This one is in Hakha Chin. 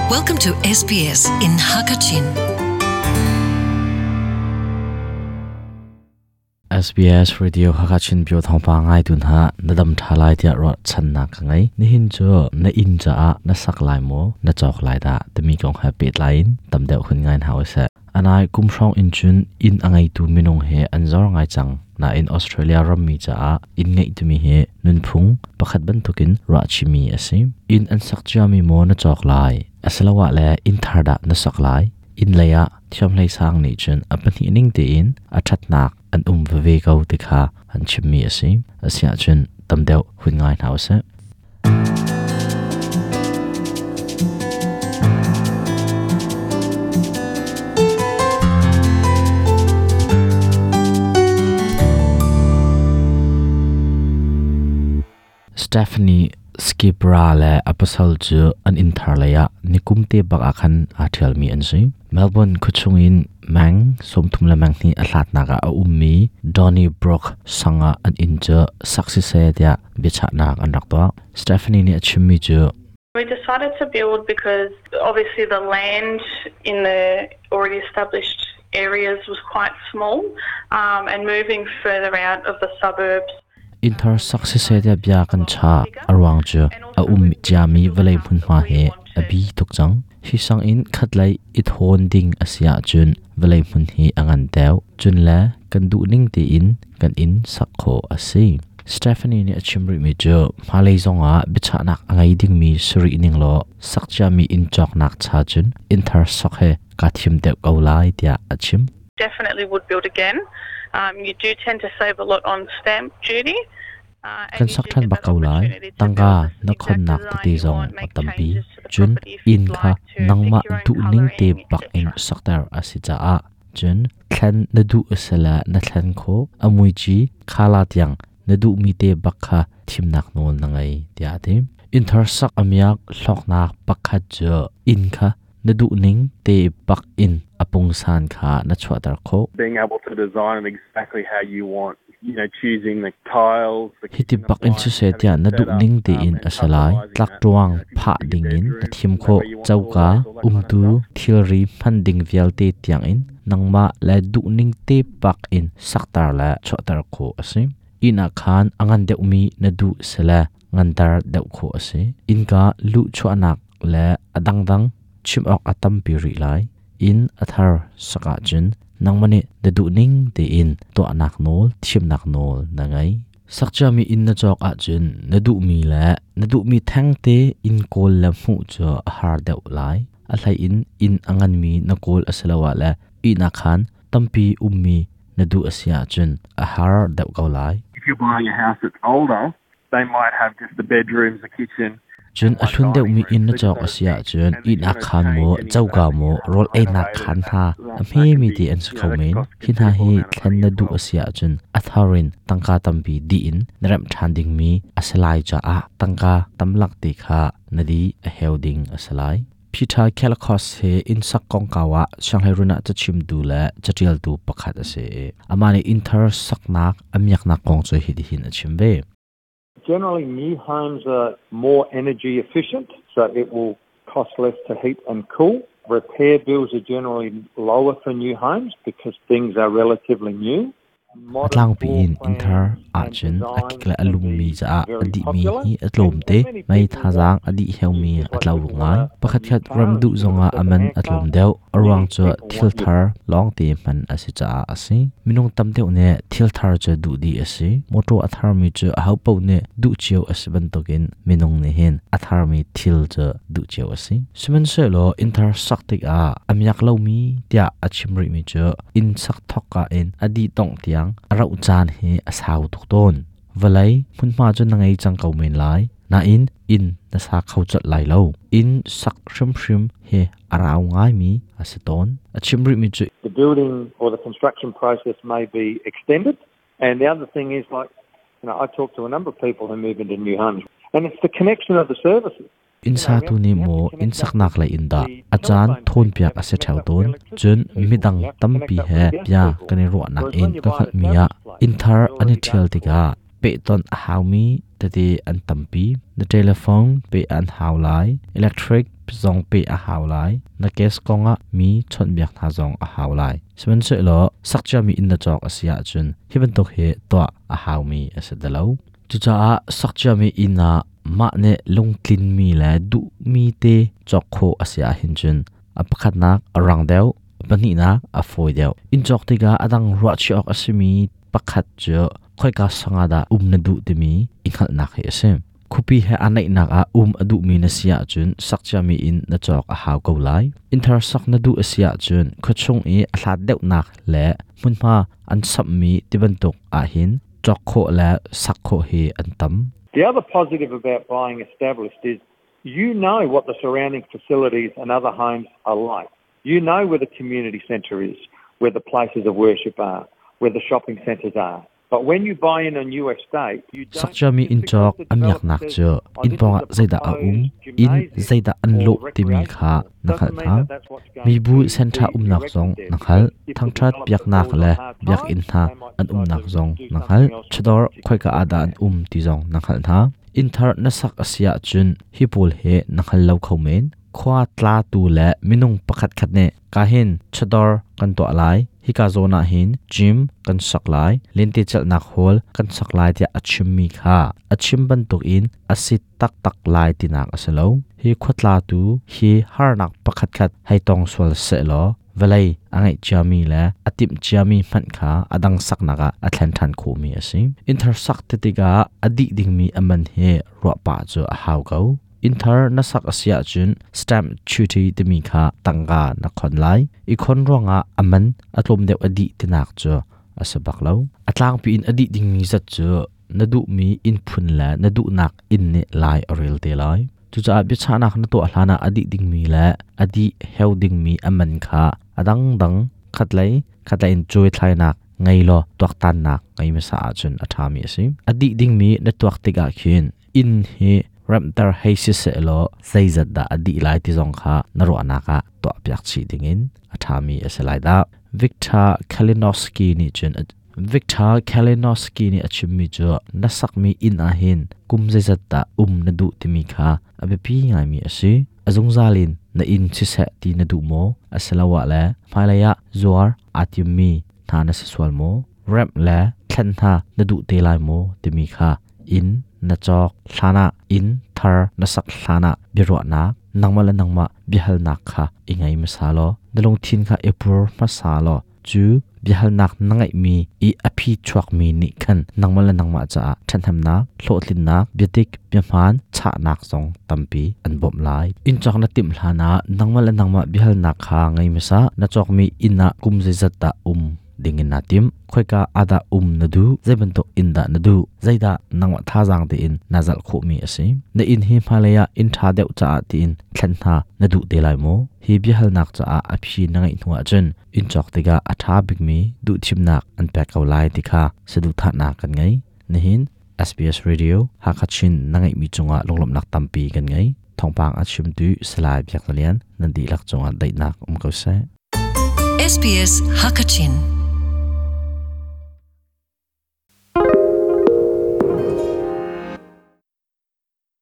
Welcome to SBS in Hakachin. SBS Radio Hakachin Pyo Thawngpa ngai tun ha na dam tha lai tiah ruah channak ka ngei. Nihin cu na inn caah na sak lai maw na cawk lai dah timi kong he pehtlai in tam deuh hun ngai hna usih. Anai kum hrawng in cun inn a ngeitu minung he an zor ngai cang. Nain Australia rammi caah inn ngeih timi hi nunphung pakhat bantukin ruahchihmi a si. Inn an sak ciami maw na cawk lai? Asiloah le inn thar dah na sak lai? Inn lei ah thiamhlei sang nih cun a pahnih ning tein a ṭhatnak an um veve ko ti kha an chimmi a si. Asiahcun tam deuh hun ngai hna usih. Stephanie Skipra le a pasal cu an inn thar lei ah nikum te bak ah khan aa ṭhialmi an si. Melbourne khuachung in meng 30 le meng hnih a hlatnak ah a ummi Donnybrook sang ah an inn cu sak siseh tiah biachahnak an rak tuah. Stephanie nih a chimmi cu We decided to build because obviously the land in the already established areas was quite small and moving further out of the suburbs Innthar sak siseh tiah bia kan chah. A ruang cu a um ciami vawlei hmunhma hi a bi tuk cang. Hi sang in khatlei i thawn ding a si ahcun vawlei hmun hi a ngan deuh. Cun le kan duhning tein kan inn sak khawh a si. Stephanie nih a chim rihmi cu hmailei zongah biachahnak a ngei dingmi si rih ning law sak ciami inn cawknak cha cun innthar sok he kaa thim deuh ko lai tiah a chim. Definitely would build again. You do tend to save a lot on stamp duty. Kan sak ṭhan bak ko lai. Tangka na khonnak tete zong a tampi. Cun inn kha nangmah duhning te bak in sakter a si caah cun thlen na duh a si le na thlen khawh. A muici khala tiang na duhmi te bak kha thimnak nawl na ngei tiah a ti. Innthar sak a miak hlawknak pakhat cu inn kha na duhning te bak in a pungsan kha na chuahter khawh. Being able to design it exactly how you want, you know, choosing the tiles, the Hiti bak in siseh tiah na duhning tein a si lai. Tlakṭuang phah dingin na thim khawh. Coka, umtu, thilri hman ding vialte tiangin nangmah le duhning te bak in sakter le chuahter khawh a si. Inn ah khan a ngan deuhmi na duh sile nganter deuh khawh a si. Innka luhchuahnak le a dangdang chim awk a tampi rih lai. Inn a thar sak ahcun nangmah nih na duhning tein tuahnak nawl, thimnak nawl na ngei. Sakciami inn na cawk ahcun na duhmi le na duhmi thengte inn kawl le hmuh cu a har deuh lai. A hlei in inn a nganmi na kawl asiloah le ihnak khaan tampi ummi na duh a si ahcun a har deuh ko lai. If you're buying a house that's older, they might have just the bedrooms, the kitchen, Cun a hlun deuhmi inn na cawk a si ahcun ihnak khaan maw, coka maw, rawl einak khaan hna a hmemi te an si kho men. Hi hna hi thlen na duh a si ahcun a thar in tangka tampi dih in na remh ṭhan dingmi a si lai caah tangka tamlak te kha na di a heu ding a si lai. Peter Kelakos hi innsak kongkau ah sianghleirun ah cachimtu le caṭialtu pakhat a si i amah nih innthar saknak a miaknak kong cu hitihin a chim ve. Generally, new homes are more energy efficient, so it will cost less to heat and cool. Repair bills are generally lower for new homes because things are relatively new. A tlangpi in innthar ahcun a kik le a lummi caah a dihmi hi a tlawmte. Mei thazaang a dih heumi a tlo ngai. Pakhatkhat rem duh zongah a man a tlawm deuh. A ruang cu thil thar lawngte hman a si caah a si. Minung tam deuh nih thil thar cu duh dih a si. Mawṭaw a tharmi cu ahopaoh nih duh cio a si bantukin minung nih hin a tharmi thil cu duh cio a si. Sihmanhsehlaw innthar sak tikah a miak lomi tiah a chim rihmi cu inn sak thawkka in a dih dongh tiang a rauh caan hi a sau tuk tawn. Vawlei hmunhma cu na ngei cang ko men lai, nain inn na sa kho colh lai lo. Inn sak hrimhrim hi a rau ngaimi a si tawn. A chim rihmi cu The building or the construction process may be extended. And the other thing is like, you know, I talk to a number of people who move into new homes and it's the connection of the services. Innsatu nih maw innsaknak lei in dah a caan thawnpiak a si ṭheo tawn? Cun midang tampi he bia kan i ruahnak in ka hngalhmi ah innthar an i ṭhial tikah pehtonh a haumi tete an tampi. Na telephone peh an hau lai, electric zong pe a hau lai. Na case kongah mi chawnhbiak hna zong a hau lai. Sihmanhsehlaw sakciami inn na cawk a si ahcun hi bantuk hi tuah a haumi a si ti lo. Cucaah sakciami inn ah mah nih lungtlinmi le duhmi te cawk khawh a si ahhin cun a pakhatnak a rang deuh, a pahnihnak a fawi deuh. Inn cawk tikah a dang ruahchih awk a simi pakhat cu khoika sang ah dah um na duh timi i hngalhnak hi a si. Khuapi he aa naihnak ah um a duhmi na si ahcun sakciami inn na cawk a hau ko lai. Innthar sak na duh a si ahcun khuachung i a hlat deuhnak le hmunhma an samhmi tibantuk ahhin cawk khawh le sak khawh hi an tam. The other positive about buying established is you know what the surrounding facilities and other homes are like. You know where the community centre is, where the places of worship are, where the shopping centres are. But when you buy in a new estate, you don't Sakciami inn cawk a miaknak cu inn pawngah zeidah a um, inn zeidah an lawh timi kha na hngalh hna. Mibu senṭha umnak zong na hngalh. Thangṭhat biaknak le biakinn hna an umnak zong na hngalh. Chawdawr khoika ah dah an um ti zong na hngalh hna. Inn thar na sak a si ahcun hi pawl hi na hngal lo kho men. Khua tlatu le minung pakhatkhat nih ka hin chawdawr kan tuah lai, hika zawn ah hin gym kan sak lai, lentecelhnak hall kan sak lai tiah a chimmi kha a chim bantukin a si taktak lai tinak a si lo. Hi khua tlatu hi harnak pakhatkhat hei tong sual sehlaw vawlei a ngeih ciami le a timh ciami hmanh kha a dang saknak ah a thlen ṭhan khawhmi a si. Innthar sak ti tikah a dih dingmi a man hi ruah pah cu a hau ko. Innthar na sak a si ahcun stamp duty timi kha tangka na khon lai. I khon ruangah a man a tlawm deuh a dih tinak cu a si bak lo. A tlangpi in a dih dingmi zat cu na duhmi inn phun le na duhnak inn nih lai a rel te lai. Cucaah biachahnak na tuah hlanah a dih dingmi le a dih heu dingmi a man kha a dangdang khatlei khatlei in cuaithlainak ngei law tuaktannak ngei hmasa ahcun a ṭhami a si. A dih dingmi na tuak tikah khin inn hi remhter hei si sehlaw zeizat dah a dih lai ti zong kha na ruahnak ah tuahpiak chih dingin a ṭhami a si lai dah. Victor Kalinowski nih cun Victor Kalinowski nih a chimmi cu na sakmi inn ah hin kum zeizat dah um na duh timi kha a biapi ngaimi a si. A zungzal in na inn siseh ti na duh maw? Asiloah le hmailei ah zuar aa timmi hna na si sual maw? Remh le thlen hna na duh te lai maw timi kha inn na cawk hlanah inn thar na sak hlanah biaruahnak nangmah le nangmah biahalnak kha i ngei hmasa law na lungthin kha i pur hmasa law cu biahalnak na ngeihmi i a phi chuakmi nih khan nangmah le nangmah caah ṭhathnemnak hlawhtlinnak biadik biahmaan chahnak zong tampi an bawmh lai. Inn cawk na timh hlanah nangmah le nangmah biahalnak kha ngei hmasa. Na cawkmi inn ah kum zeizat dah um dingin naa tim? Khoika ah dah um na duh? Zei bantuk inn dah na duh? Zeidah nangmah thazaang tein naa zalh khawhmi a si? Na inn hi hmailei ah inn ṭha deuh caah tiin thlen hna na duh te lai maw? Hi biahalnak caah a phi na ngeih hnu ahcun inn cawk tikah a ṭha bikmi duhthimnak an pek ko lai ti kha saduhthahnak kan ngei. Nihin SBS Radio Hakha Chin na ngeihmi cungah lunglawmhnak tampi kan ngei. Thawngpang a chimtu Salai Biak Lian nan dihlak cungah daihnak um ko seh. SBS Hakachin.